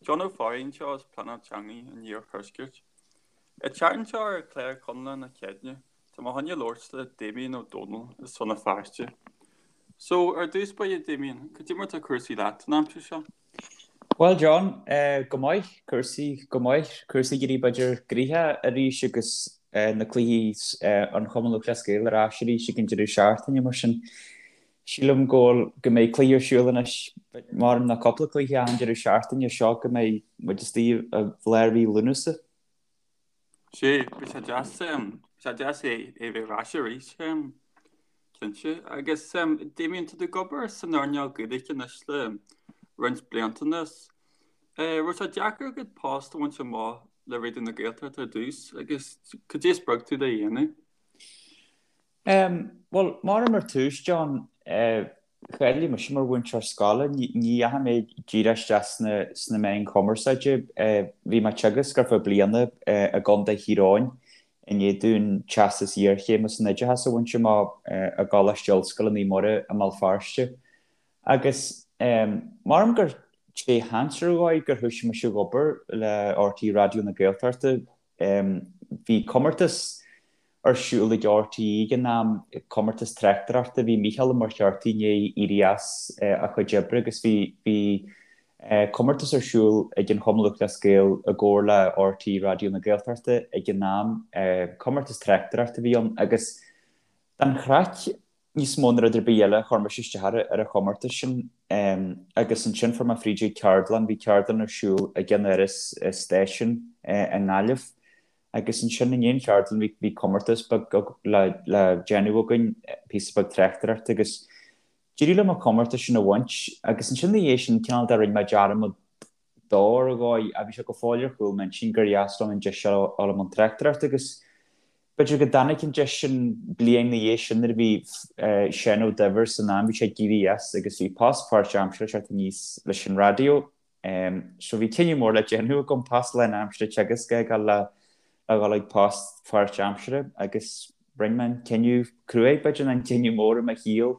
John Ó Fearraigh anseo as Pleanáil Teanga an Iarthuaiscirt. An tseachtain seo ar chlár Conaire na Céadaoine, tá mé chun labhairt le Damien Ó Dónaill as Rann na Feirste. So, ar dtús báire Damien, cad é mar tá cúrsaí leat an aimsir seo? Bhuel John, go maith, cúrsaí go maith, cúrsaí ag éirí b'fhéidir gnoitheach arís agus na cluichí an Chumann Lúthchleas Gael ar ais arís ag an deireadh seachtaine mar sin sílim go bhfuil, go mbeidh cluiche ar siúl anois, maram ná cúpla cluiche achan deireadh seachtaine seo go mbeidh muid istigh i lár mhí Lúnasa. Sea, bhí sé deas, bhí sé deas é a bheith ar ais arís, cinnte. Agus Damien, tá tú ag obair san earnáil Gaeilge anois le roinnt blianta anuas. Raibh sé deacair agat post a bhaint amach le Raidió na Gaeltachta ar dtús agus cad é a spreag tú le dhéanamh? Bhuel, maram ar tús, John, cháiligh mise mar mhúinteoir scoile. Ní dheachaigh mé díreach isteach sna meáin chumarsáide. Bhí mé ag teagasc ar feadh bliana i gContae Thír Eoghain i ndiaidh dúinn teastas iarchéime san oideachas a bhaint amach i gColáiste Ollscoile Naomh Muire i mBéal Feirste. Agus maram gur tré sheans ar dhóigh gur thoisigh mise ag obair le RTÉ Raidió na Gaeltachta. Bhí comórtas ar siúl ag RTÉ ag an am, comórtas tráchtaireachta. Bhí Mícheál Ó Muircheartaigh i ndiaidh éirí as a chuid oibre agus bhí bhí comórtas ar siúl ag an Chumann Lúthchleas Gael i gcomhar le RTÉ Raidió na Gaeltachta ag an am. Comórtas tráchtaireachta a bhí ann agus don chraic níos mó ná rud ar bith eile chuir mise isteach ar an chomórtas sin agus ansin fuair mé fríd ag ceardlann, bhí ceardlann ar siúl ag an Áras Stáisiún i nGaillimh agus ansin i ndiaidh an cheardlann bhí bhí comórtas beag le le déanamh againn, píosa beag tráchtaireachta agus d'éirigh liom an comórtas sin a bhaint agus ansin ina dhiaidh sin cineál de rinne mé dearmad dó ar dhóigh ach bhí sé go fóill ar chúl m'intinn gur dheas liom an deis a fháil i mbun tráchtaireachta agus B'fhéidir go dtáinig an deis sin bliain ina dhiaidh sin nuair a bhí Seán Ó Duibhir san am, bhí sé ag éirí as agus bhí post páirtaimseartha ag teacht aníos leis an raidió. So bhí cinneadh mór le déanamh agam, post lánaimseartha ag teagasc a fhágáil le dhul ag post páirtaimseartha agus rinne mé an cinneadh cruaidh, b'fhéidir, nó an cinneadh mór i mo shaol,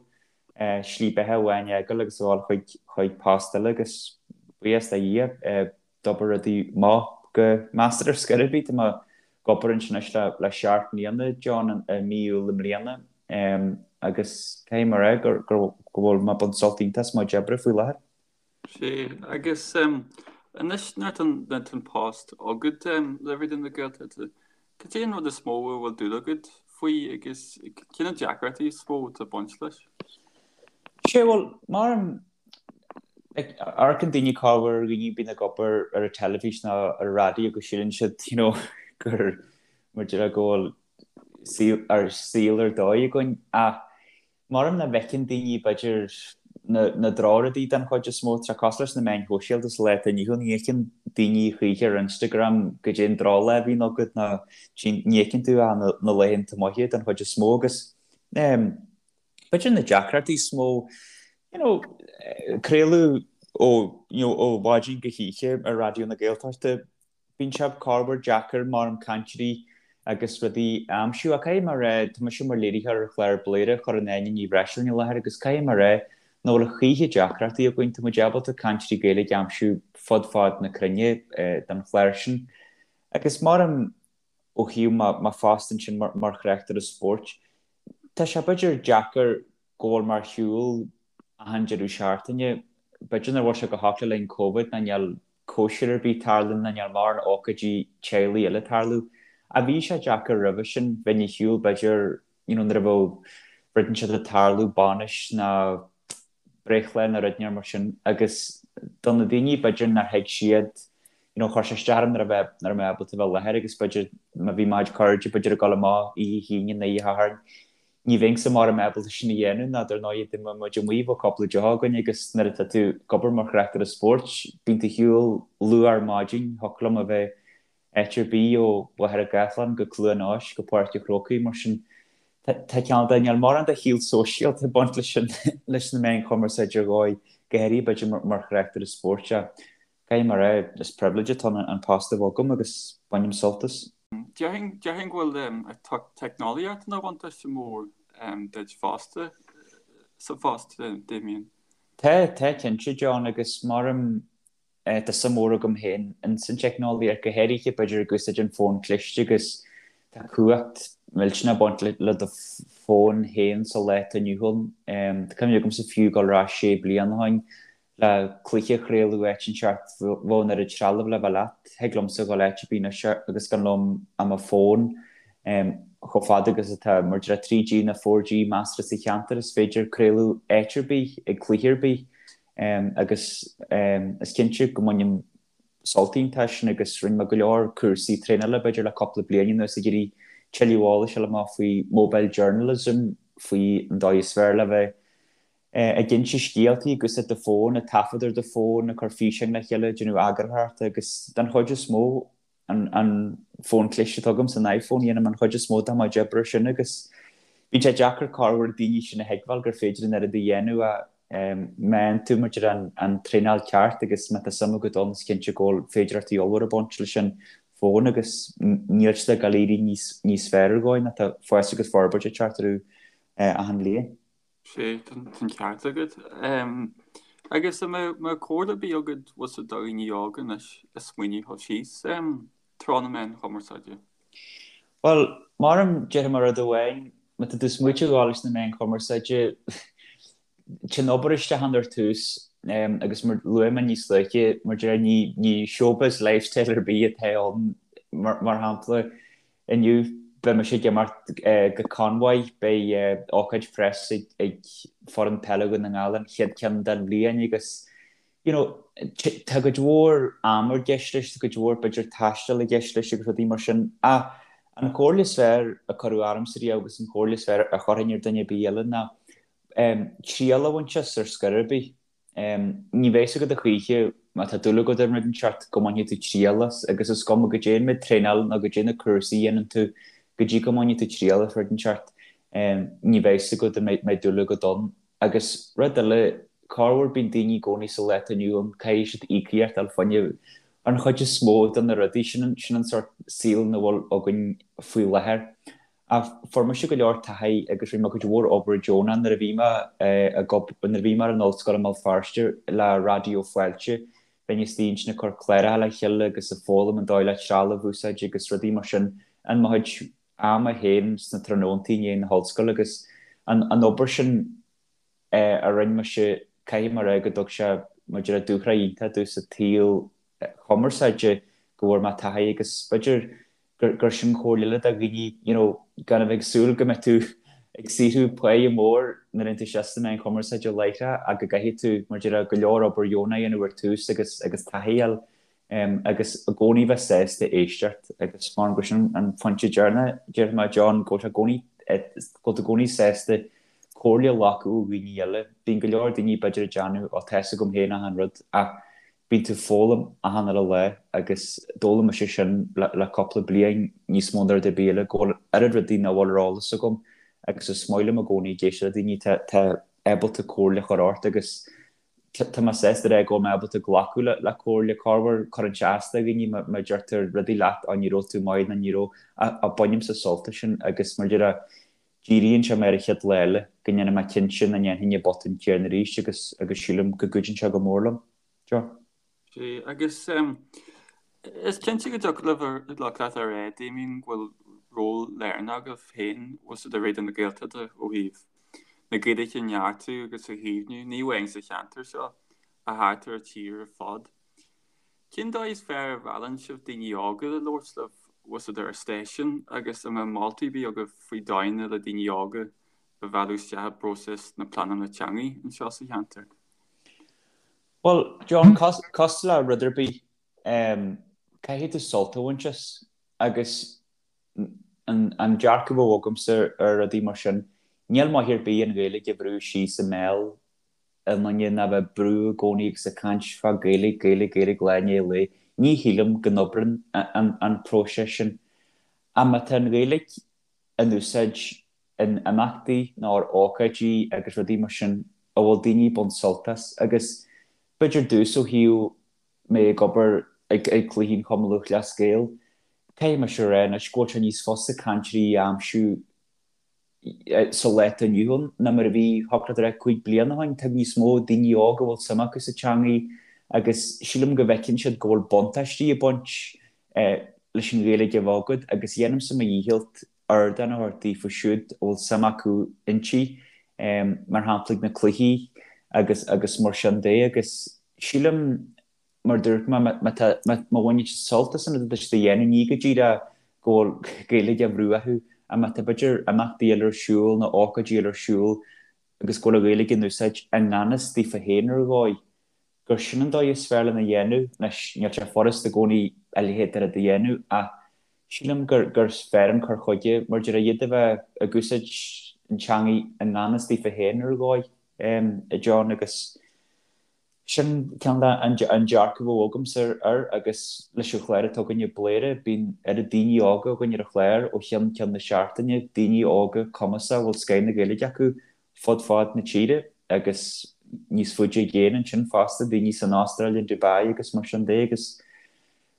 slí beatha amháin a fhágáil agus a dhul chuig chuig post eile agus buíochas le Dhia, d'oibir rudaí amach go measartha ar scor ar bith. Tá mé ag obair ansin anois le seacht mbliana, John, i mí Iúil i mbliana agus caithfidh mé a rá go bhfuil mé ag baint sult iontach as mo chuid oibre faoi láthair. Sea, agus anois nuair atá an post agat le Raidió na Gaeltachta, cad é an rud is mó a bhfuil dúil agat faoi agus cé na deacrachtaí is mó atá ag baint leis? Sea, bhuel, mar an Amharcann daoine corruair ar dhaoine a bhíonn ag obair ar an teilifís nó ar an raidió go síleann siad you know gur mar déarfá go bhfuil saol ar saol ar dóigh againn ach maram nach bhfeiceann daoine b'fhéidir na na drochrudaí den chuid is mó. Tá sé cosúil leis na meáin shóisialta sa lá atá inniu ann, ní fheiceann daoine choíche ar Instagram goidé an drochlá a bhíonn agat ná ní fheiceann tú ach na na laethanta maithe den chuid is mó agus ehm B'fhéidir na deacrachtaí is mó, you know, craoladh ó, you know, ó mhaidin go hoíche ar Raidió na Gaeltachta, bíonn sé corruair deacair maram cainteoirí agus rudaí a aimsiú. Ach caithfidh mé a rá, tá mise mar léiritheoir ar chlár Bladhaire a chuireann Áine Ní Bhreisleáin i láthair agus caithfidh mé a rá nach bhfuil a choíche deacrachtaí againn, tá muid ábalta cainteoirí Gaeilge a aimsiú fud fad na cruinne don chlár sin. Agus maram ó thaobh mo phost ansin mar thráchtaire spóirt, Tá sé b'fhéidir deacair go bhfuil mé ar shiúl achan deireadh seachtaine. B'fhéidir nach bhfuil sé go holc le linn Covid ná níl cóisir ar bith ag tarlú ná níl mórán ócáidí teaghlaigh eile ag tarlú. Ach bhí sé deacair roimhe sin, bheinn ar shiúl b'fhéidir you know nuair a bheadh rud inteacht ag tarlú, bainis ná breithlá nó rud inteacht mar sin agus do na daoine b'fhéidir nár thuig siad you know chuir sé isteach orm nach raibh nach raibh mé ábalta bheith i láthair agus b'fhéidir má bhí mo chuid cairde b'fhéidir ag dul amach oíche hAoine nó oíche Shathairn ní bheinnse maram ábalta sin a dhéanamh ná dar ndóigh dá mbeadh muid amuigh bheadh cúpla deoch againn agus nuair atá tú ag obair mar thráchtaire spóirt bíonn tú ar shiúl luath ar maidin thiocfadh liom a bheith áit ar bith ó Mhachaire Gathlán go Cluain Eois go Páirc an Chrócaigh, mar sin tá cineál de, níl mórán de shaol sóisialta ag baint leis an, leis na meáin chumarsáide ar dhóigh, go háirithe b'fhéidir mar thráchtaire spóirt ach caithfidh mé a rá, is pribhléid atá ann an post a bheith agam agus bainim sult as. Déarfainn, déarfainn go bhfuil an teicneolaíocht ina bhuntáiste mór duit fosta sa phost, Damien. Tá, tá cinnte, John, agus maram. Tá suim mhór agam féin ins an teicneolaíocht, go háirithe b'fhéidir ag úsáid an fón cliste agus tá cumhacht millteanach ag baint le do fón féin sa lá atá inniu ann. Tá cuimhne agamsa fiú dul ar ais sé bliana ó shin le cluiche a chraoladh áit inteacht bheadh an oiread trealamh le bheith leat. Thig liomsa dhul áit ar bith anois agus gan liom ach mo fón. Chomh fada agus atá mar a déarfá 3G nó 4G measartha sa cheantar is féidir craoladh áit ar bith ag cluiche ar bith. Agus is cinnte go mbainim sult iontach as sin agus rinne mé go leor cúrsaí traenála b'fhéidir le cúpla bliain anuas ag iarraidh tuilleadh eolais a fháil amach faoi mobile journalism, faoi an dóigh is fearr le bheith ag inse scéaltaí ag úsáid do fón, ag taifead ar do fón, ag cur físeáin le chéile, ag déanamh eagarthóireachta agus den chuid is mó an fón cliste atá agamsa, an iPhone, dhéanaim an chuid is mó de mo chuid oibre ar sin agus bíonn sé deacair corruair daoine sin a thuigbheáil gur féidir an oiread a dhéanamh ach má fhaigheann tú mar a déarfá an traenáil ceart agus má tá suim agat ann is cinnte go bhfuil féidearthachtaí ollmhóra ag baint leis an bhfón agus níl siad ag dul éirí níos fearr ar dhóigh ná tá fás agus forbairt ag teacht orthu achan bhliain. Sea, tá an ceart agat. Agus an mbeadh comhairle ar bith agat bhfuil 's agat do dhaoine óga anois ag smaoineamh dhul síos treo na meáin chumarsáide? Bhuel, maram, déarfaidh mé rud amháin, má tá tú ag smaoitiú dhul leis na meáin chumarsáide, téann obair isteach ann ar tús, agus mar luaigh mé níos luaithe, mar a déarfá, ní showbiz lifestyle ar bith atá ann, mar shampla, Inniu beidh mise ag imeacht go Conmhaigh, beidh ócáid preas ag foireann peile Dhún na nGall, an chéad ceann den bhliain agus you know tá cuid mhór ama i gceist leis, tá cuid mhór b'fhéidir taistil i gceist leis agus rudaí mar sin ach an chomhairle is fearr a cuireadh ormsa riamh agus an chomhairle is fearr a chuirfinn ar duine ar bith eile ná triail a bhaint as ar scor ar bith. Ní bheidh 's agat a choíche má tá dúil agat i rud inteacht go mbainfidh tú triail as agus is cuma goidé an méid traenáil nó goidé na cúrsaí a dhéanann tú go dtí go mbainfidh tú triail as rud inteacht ní bheidh 's agat an mbeidh dúil agat ann. Agus rud eile, corruair bíonn daoine i gcónaí sa lá atá inniu ann caithfidh siad íocaíocht a fháil fá choinne an chuid is mó de na rudaí sin, sin an sórt saol ina bhfuil againn faoi láthair. Ach fuair mise go leor taithí agus rinne mé cuid mhór obair deonach nuair a bhí mé ag nuair a bhí mé ar an ollscoil i mBéal Feirste le Raidió Fáilte. Bheinn istigh ansin ag cur cláracha le chéile agus ag foghlaim an dóigh le trealamh a úsáid agus rudaí mar sin in mo chuid ama féin sna tráthnóntaí i ndiaidh na hollscoile agus an an obair sin a rinne mise caithfidh mé a rá go dtug sé mar a déarfá dúshraith iontach domh sa tsaol chumarsáide go bhfuair mé taithí agus b'fhéidir gur sin comhairle eile do dhaoine you know gan a bheith ag súil go mbeidh tú ag saothrú páighe mór nuair a théann tú isteach sna meáin chumarsáide láithreach ach go gcaithfidh tú mar a déarfá go leor obair dheonach a dhéanamh ar tús agus agus taithí a fháil agus i gcónaí bheith sásta éisteacht agus mar gur sin an pointe deireanach déarfaidh mé John go bhfuil sé i gcónaí go bhfuil tú i gcónaí sásta comhairle a ghlacadh ó dhaoine eile. Bíonn go leor daoine b'fhéidir ag déanamh ó tá 'fhios agam féin achan rud ach Bíonn tú ag foghlaim achan uile lá agus d'fhoghlaim mise sin le cúpla bliain níos mó ná rud ar bith eile, go bhfuil oiread rudaí nach bhfuil ar eolas agam agus is maith liom i gcónaí ag éisteacht le daoine atá ábalta comhairle a chur ort agus tá mé sásta a rá go bhfuil mé ábalta glacadh le comhairle corruair cuireann sé as do dhaoine má deirtear rudaí leat á ní raibh tú maith nó ní raibh ach bainimse sult as sin agus mar a déarfá díríonn sé mé ar an chéad lá eile go ndéanfaidh mé cinnte nach ndéanfainn an botún céanna arís agus agus sílim go gcuidíonn sé go mór liom. Joe. Sea, agus is cinnte go dtiocfadh libh leat a rá, Damien, go bhfuil ról lárnach agaibh féin bhfuil 's agat i Raidió na Gaeltachta ó thaobh na Gaeilge a neartú agus a chaomhnú, ní amháin sa cheantar seo, ach thart ar an tír ar fad. Cén dóigh is fearr a mheallann sibh daoine óga le labhairt libh bhfuil 's agat ar an stáisiún agus an mbeadh moltaí ar bith agaibh faoi dóigheanna le daoine óga a mhealladh isteach i bpróiseas na pleanála teanga anseo sa cheantar? Bhuel, John, cosúil le rud ar bith, caithfidh tú sult a bhaint as agus an dearcadh a bheadh agamsa ar rudaí mar sin, níl maith ar bith an Ghaeilge a bhrú síos i mbéal i nduine ná bheith ag brú i gcónaí agus ag caint fá Gaeilge, Gaeilge, Gaeilge lá i ndiaidh lae. Ní shílim go n-oibreann an próiseas sin. Ach má tá an Ghaeilge in úsáid in imeachtaí nó ar ócáidí agus rudaí mar sin a bhfuil daoine ag baint sult as agus b'fhéidir domhsa ó thaobh mé ag obair ag cluichí an Chumann Lúthchleas Gael, caithfidh mise a rá anois go bhfuil sé níos fusa cainteoirí a aimsiú sa lá atá inniu ann ná mar a bhí, thiocfadh leat a rá, 5 bliana ó shin. Tá níos mó daoine óga a bhfuil suim acu sa teangaidh. Agus sílim go bhfeiceann siad go bhfuil buntáistí ag baint leis an Ghaeilge a bheith agat agus dhéanaimse mo dhícheall ardán a thabhairt daofa siúd a bhfuil suim acu inti, mar shampla ag na cluichí agus agus mar sin de. Agus sílim, mar a dúirt mé, má tá, má bhaineann siad sult as an rud atá siad a dhéanamh, ní go díreach go bhfuil Gaeilge á bhrú orthu, ach má tá b'fhéidir imeachtaí eile ar siúl nó ócáidí eile ar siúl agus go bhfuil an Ghaeilge in úsáid i ngan fhios daofa féin ar dhóigh, gur sin an dóigh is fearr lena dhéanamh. Anois, níl sé furast i gcónaí a leithéid de rud a dhéanamh ach sílim gur gur fearr an cur chuige mar deir iad a bheith ag úsáid an teangaidh i ngan fhios daofa féin ar dhóigh, a John, agus sin ceann de an dearcadh a bheadh agamsa air agus leis an chlár atá againne Bladhaire, bíonn oiread daoine óga againn ar an chlár ó cheann ceann na seachtaine, daoine óga cumasacha a bhfuil scoth na Gaeilge acu fud fad na tíre agus níos faide i gcéin ansin fosta, daoine san Astráil, in Dubai agus mar sin de agus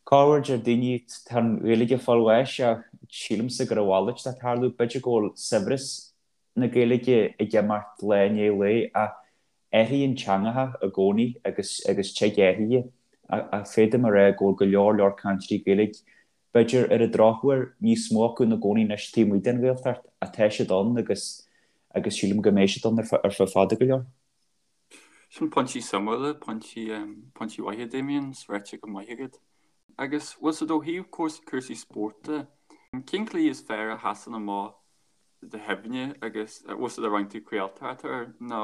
corruair deir daoine tá an Ghaeilge ag fáil bháis ach sílimse gur a mhalairt atá ag tarlú, b'fhéidir go bhfuil saibhreas na Gaeilge ag imeacht lá i ndiaidh lae ach athraíonn teangacha i gcónaí agus agus tig athruithe ach féadaim a rá go bhfuil go leor leor cainteoirí Gaeilge B'fhéidir, ar an drochuair, níos mó acu ina gcónaí anois taobh amuigh den Ghaeltacht, ach tá siad ann agus agus sílim go mbeidh siad ann ar feadh fada go leor. Sin pointí suimiúla, pointí, pointí maithe, Damien, is ráite go maith agat. Agus bhfuil 's agat ó thaobh cúrsaí spóirt de, cén cluiche is fearr a sheasann amach i do chuimhne agus bhfuil 's agat ar bhain tú craoltóireacht air nó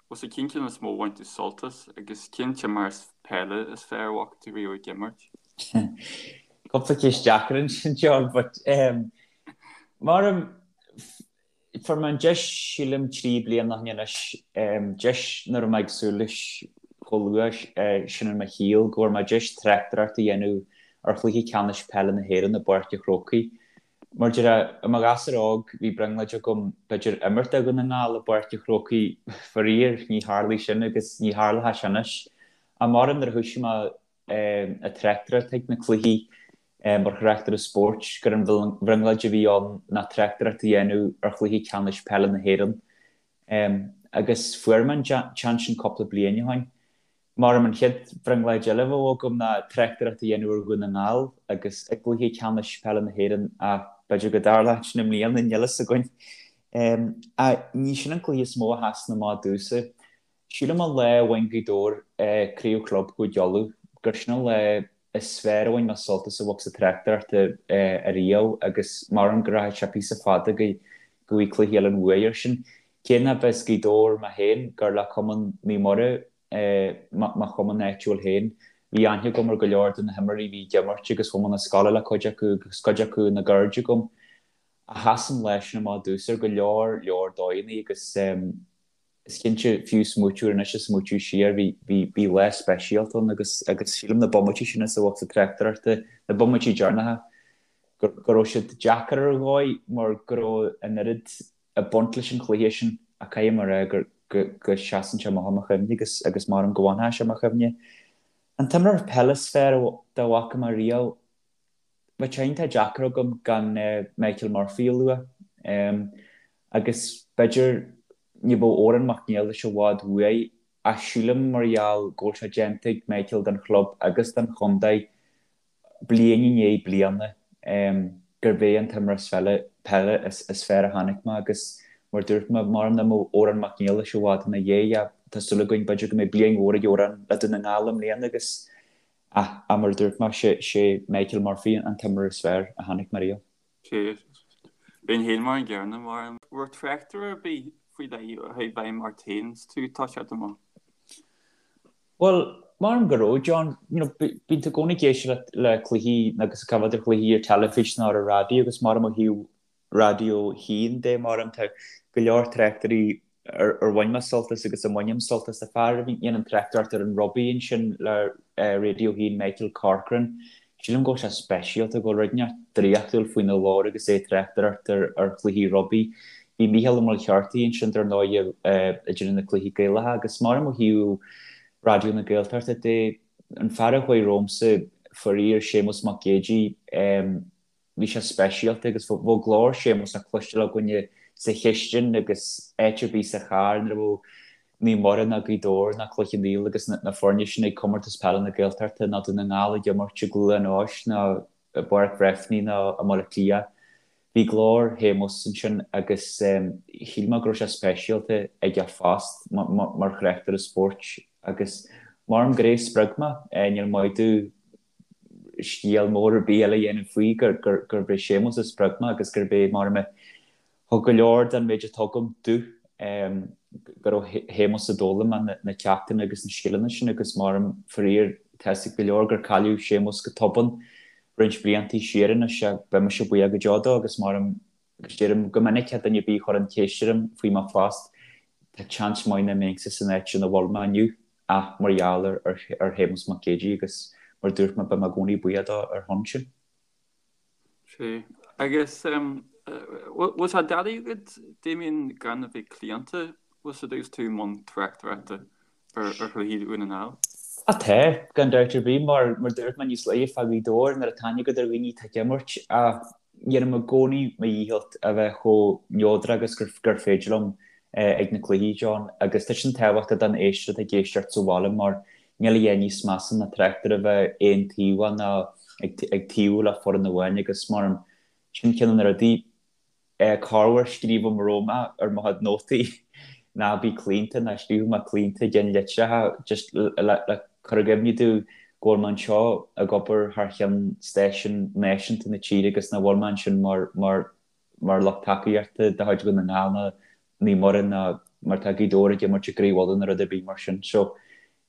Bhfuil 's agat cén ceann is mó a bhain tú sult as agus cén t-imreoir peile is fearr a bhfaca tú riamh ag imirt? Cúpla ceist deacair ansin, John, but um, mar fuair mé an deis sílim 3 bliana ó shin anois, um, deis nach raibh mé ag súil leis chomh luath uh, sin in mo shaol, go bhfuair mé deis tráchtaireacht a dhéanamh ar chluiche ceannais peile na hÉireann i bPáirc an Chrócaigh. Mar deir, i mo ghasúr óg, bhí brionglóid agam b'fhéidir imirt do Dhún na nGall i bPáirc an Chrócaigh, faraor, ní tharlaigh sin agus ní tharlóidh sé anois. Ach maram nuair a thoisigh mé ag tráchtaireacht ag na cluichí mar thráchtaire spóirt, gur an bhrionglóid a bhí ann ná tráchtaireacht a dhéanamh ar chluiche ceannais peile na hÉireann. Agus fuair mé an seans sin cúpla bliain ó shin. Maram an chéad bhrionglóid eile a bheadh agam ná tráchtaireacht a dhéanamh ar Dhún na nGall agus i gcluiche ceannais peile na hÉireann ach b'fhéidir go dtarlóidh sin i mbliana, níl a fhios againn. Ach ní sin an cluiche is mó a sheasann amach domhsa. Sílim an lá a bhain Gaoth Dobhair Craobh Chlub Chúige Uladh gur sin an lá is fearr a bhain mé sult as a bheith ag tráchtaireacht ariamh agus maram go rachaidh sé píosa fada go bhfaighidh cluiche eile an bhuaidh air sin. Cé nach as Gaoth Dobhair mé féin, gur le Cumann Naomh Muire mo chumann áitiúil féin. Bhí aithne agam ar go leor de na himreoirí a bhí ag imirt agus chuaigh mé 'na scoile le cuid acu agus cuid acu ina gcairde agam. Ach sheas an lá sin amach domhsa ar go leor leor dóigheanna agus is cinnte, fiú smaoitiú air anois is smaoitiú siar, bhí, bhí, bhí lá speisialta ann agus, agus sílim na bomaití sin is a bheadh sa tráchtaireachta, na bomaití deireanacha, go, go raibh siad deacair ar dhóigh mar go raibh an oiread ag baint leis an chluiche sin ach caithfidh mé a rá gur go seasann sé amach i mo chuimhne agus agus maram go bhfanfaidh sé i mo chuimhne. An t-imreoir peile is fearr dá bhfaca mé riamh, bheadh sé iontach deacair agam gan Michael Murphy a lua. Agus b'fhéidir ní bheadh Odhrán Mac Niallais i bhfad uaidh ach sílim mar gheall go bhfuil sé déanta ag Michael don chlub agus don chontae bliain i ndiaidh bliana gurb é an t-imreoir peile is fearr a chonaic mé agus mar dúirt mé, maram nach mbeadh Odhrán Mac Niallais i bhfad ina dhiaidh ach tá súil againn b'fhéidir go mbeidh bliain mhór ag Odhrán le Dún na nGall i mbliana agus ach mar a dúirt mé, sé Michael Murphy an t-imreoir is fearr a chonaic mé riamh. Sea, bheinn féin mar an gcéanna, mar an raibh tráchtaire ar bith faoi leith a chuaigh i bhfeidhm ort féin is tú ag toiseacht amach? Bhuel, maram go raibh, John. You know, bíonn tú i gcónaí ag éisteacht le cluichí agus ag coimhéad ar chluichí ar teilifís nó ar an raidió agus maram ó thaobh Raidió 1 de, maram tá go leor tráchtairí ar ar bhain mé sult as agus a mbainim sult as. Tá fear a dhéanann tráchtaireacht ar an rugbaí ansin le Raidió 1, Michael Corcoran. Sílim go bhfuil sé speisialta, go bhfuil rud inteacht draíochtúil faoina ghlór agus é ag tráchtaireacht ar chluichí rugbaí. Bhí Mícheál Ó Muircheartaigh ansin dar ndóigh ag déanamh na cluichí Gaelacha agus maram ó thaobh Raidió na Gaeltachta de, an fear a chuaigh romhamsa, faraor, Séamus Mac Géidigh, bhí sé speisialta agus bheadh glór Séamus le cloisteáil againne sa chistin agus áit ar bith sa charr nuair a bheadh. Naomh Muire ná Gaoth Dobhair ná Cloich Cheann Fhaola agus na foirne sin ag Comórtas Peile na Gaeltachta ná Dún na nGall ag imirt i gCluain Eois ná i bPáirc Bhreifne ná i mBaile Átha Cliath. Bhí glór Shéamuis ansin agus shíl mé go raibh sé speisialta ag a phost mar thráchtaire spóirt agus maram gur é a spreag mé, níl maith domh scéal mór ar bith eile a dhéanamh faoi gurb é Séamus a spreag mé agus gurb é maram a thug go leor den méid atá agam domh, gur ó Shéamus a d'fhoghlaim mé na ceachtanna agus na scileanna sin agus maram faraor tá 'fhios ag go leor gur cailleadh Séamus go tobann roinnt bliantaí siar anois beidh mise buíoch go deo dó agus maram agus deirim go minic le duine ar bith a chuireann ceist orm faoi mo phost, tá seans maith nach mbeinnse san áit ina bhfuil mé inniu ach mar gheall ar Shéamus Mac Géidigh agus mar a dúirt mé beidh mé i gcónaí buíoch dó ar shon sin. Sea. Agus bhfuil sé doiligh agat, Damien, gan a bheith claonta, bhfuil 'fhios a'd agus tú i mbun tráchtaireachta ar chluichí Dhún na nGall? Á tá, gan dabht ar bith, mar mar dúirt mé níos luaithe fá Ghaoth Dobhair, nuair atá aithne agat ar dhaoine atá ag imirt, ach dhéanaim i gcónaí mo dhícheall a bheith chomh neodrach agus gur féidir liom ag na cluichí, John, agus tá sin tábhachtach don éisteoir atá ag éisteacht sa bhaile mar níl a dhath níos measa ná tráchtaire a bheith aontaobhach ná ag taobhú le foireann amháin agus mar sin ceann de na rudaí corruair scríobhaim romham ar mo chuid nótaí ná bí claonta ná scríobhfaidh mé claonta i gceann litreacha just le cur i gcuimhne domh go bhfuil mé anseo ag obair thar cheann stáisiún náisiúnta na tíre agus nach bhfuil mé ansin mar mar mar lucht tacaíochta de chuid Dhún na nGall ná Naomh Muire ná mar tá Gaoth Dobhair ag imirt i gCraobh Uladh nó rud ar bith mar sin. So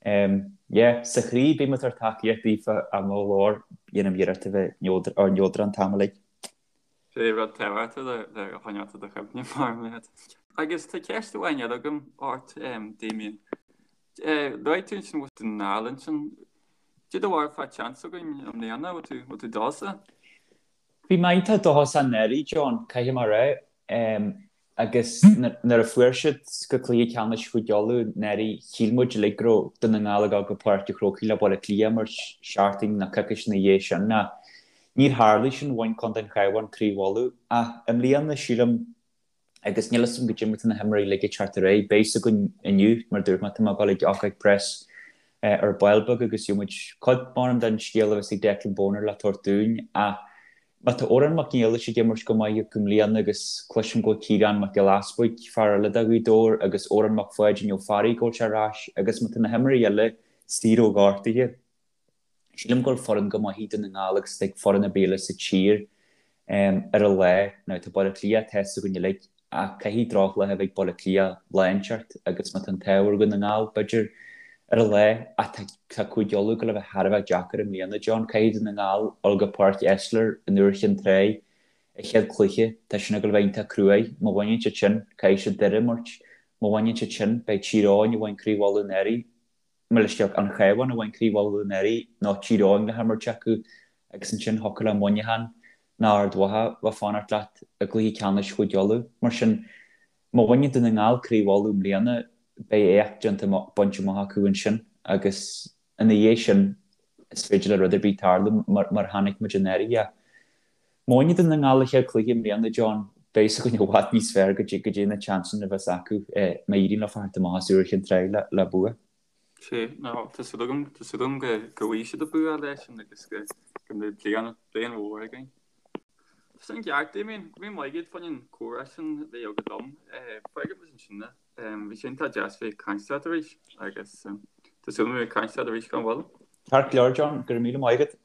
um yeah, sa chroí bím ag tabhairt tacaíocht daofa ach i mo ghlór dhéanaim iarracht a bheith neodrach an t-am uilig. Sé rud tábhachtach le choinneáil i do chuimhne mar leat. Agus tá ceist amháin eile agam ort, Damien. Luaigh tú ansin bhfuil Dún na nGall ansin. Cad é do bharúil fán tseans againn i mbliana, bhfuil tú bhfuil tú dóchasach? Bhí mé iontach dóchasach anuraidh, John, caithfidh mé a rá. Agus nuair a fuair siad go cluiche ceannais Chúige Uladh anuraidh, shíl muid uilig go raibh Dún na nGall ag dul go Páirc an Chrócaigh le Baile Átha Cliath mar seachtain nó coicís ina dhiaidh sin. Ach níor tharlaigh sin, bhain Contae an Chabháin Craobh Uladh. Ach i mbliana, sílim, agus níl 'fhios a'm goidé mar tá na himreoirí uilig ag teacht ar aghaidh, beidh 'fhios againn inniu, mar a dúirt mé, tá mé ag dul ag ócáid preas ar ball beag agus gheobhaidh muid cuid, maram, den scéal a bheas ag Declan Bonner le tabhairt dúinn. Ach Má tá Odhrán Mac Niallais ag imirt go maith i mbliana agus cloisim go bhfuil Ciarán Mac Giolla Easbuig, fear eile do Ghaoth Dobhair, agus Odhrán Mac Pháidín Ó Fearraigh go bhfuil sé ar ais agus má tá na himreoirí eile saor ó ghortuithe, sílim go bhfuil foireann go maith ag Dún na nGall agus ag foireann ar bith eile sa tír ar a lá. Now tá Baile Átha Cliath, tá 'fhios againn uilig, Ach caithfidh drochlá a bheith ag Baile Átha Cliath lá inteacht agus má tá an t-ádh ar Dhún na nGall, b'fhéidir, ar a lá. Ach tá Cúige Uladh ag gabháil a bheith thar a bheith deacair i mbliana, John. Caithfidh Dún na nGall dul go Páirc Esler in Iúr Chinn Trá a chéad chluiche. Tá sin ag gabháil a bheith iontach cruaidh. Má bhaineann siad sin, caithfidh siad Doire a imirt. Má bhaineann siad sin, beidh Tír Eoghain a bhain Craobh Uladh anuraidh. Mo leithscéal, An Cabhán a bhain Craobh Uladh anuraidh nó Tír Eoghain le himirt acu agus ansin thiocfadh le Muineachán nó Ard Mhacha bheith fanacht leat i gcluiche ceannais Chúige Uladh. Mar sin, má bhaineann Dún na nGall Craobh Uladh i mbliana, beidh éacht déanta bainte amach acu ansin agus ina dhiaidh sin is féidir le rud ar bith tarlú mar a chonaic muid anuraidh. Má bhaineann Dún na nGall a chéad chluiche i mbliana, John, beidh 'fhios againn i bhfad níos fearr goidé na seansanna a bheas acu má éiríonn leo theacht amach as Iúr Chinn Trá le bua. Sea, nó tá súil agam, tá súil agam go bhfaighidh siad an bua leis sin agus go go mbeidh bliain, bliain mhór againn. Tá sin ceart, Damien, go raibh míle maith agat fá choinne an comhrá sin a bheith agat liom. Fágfaidh muid ansin é. Bhí sé iontach deas bheith ag caint leat arís agus tá súil agam bheith ag caint leat arís gan mhoill. Ceart go leor, John, go raibh míle maith agat.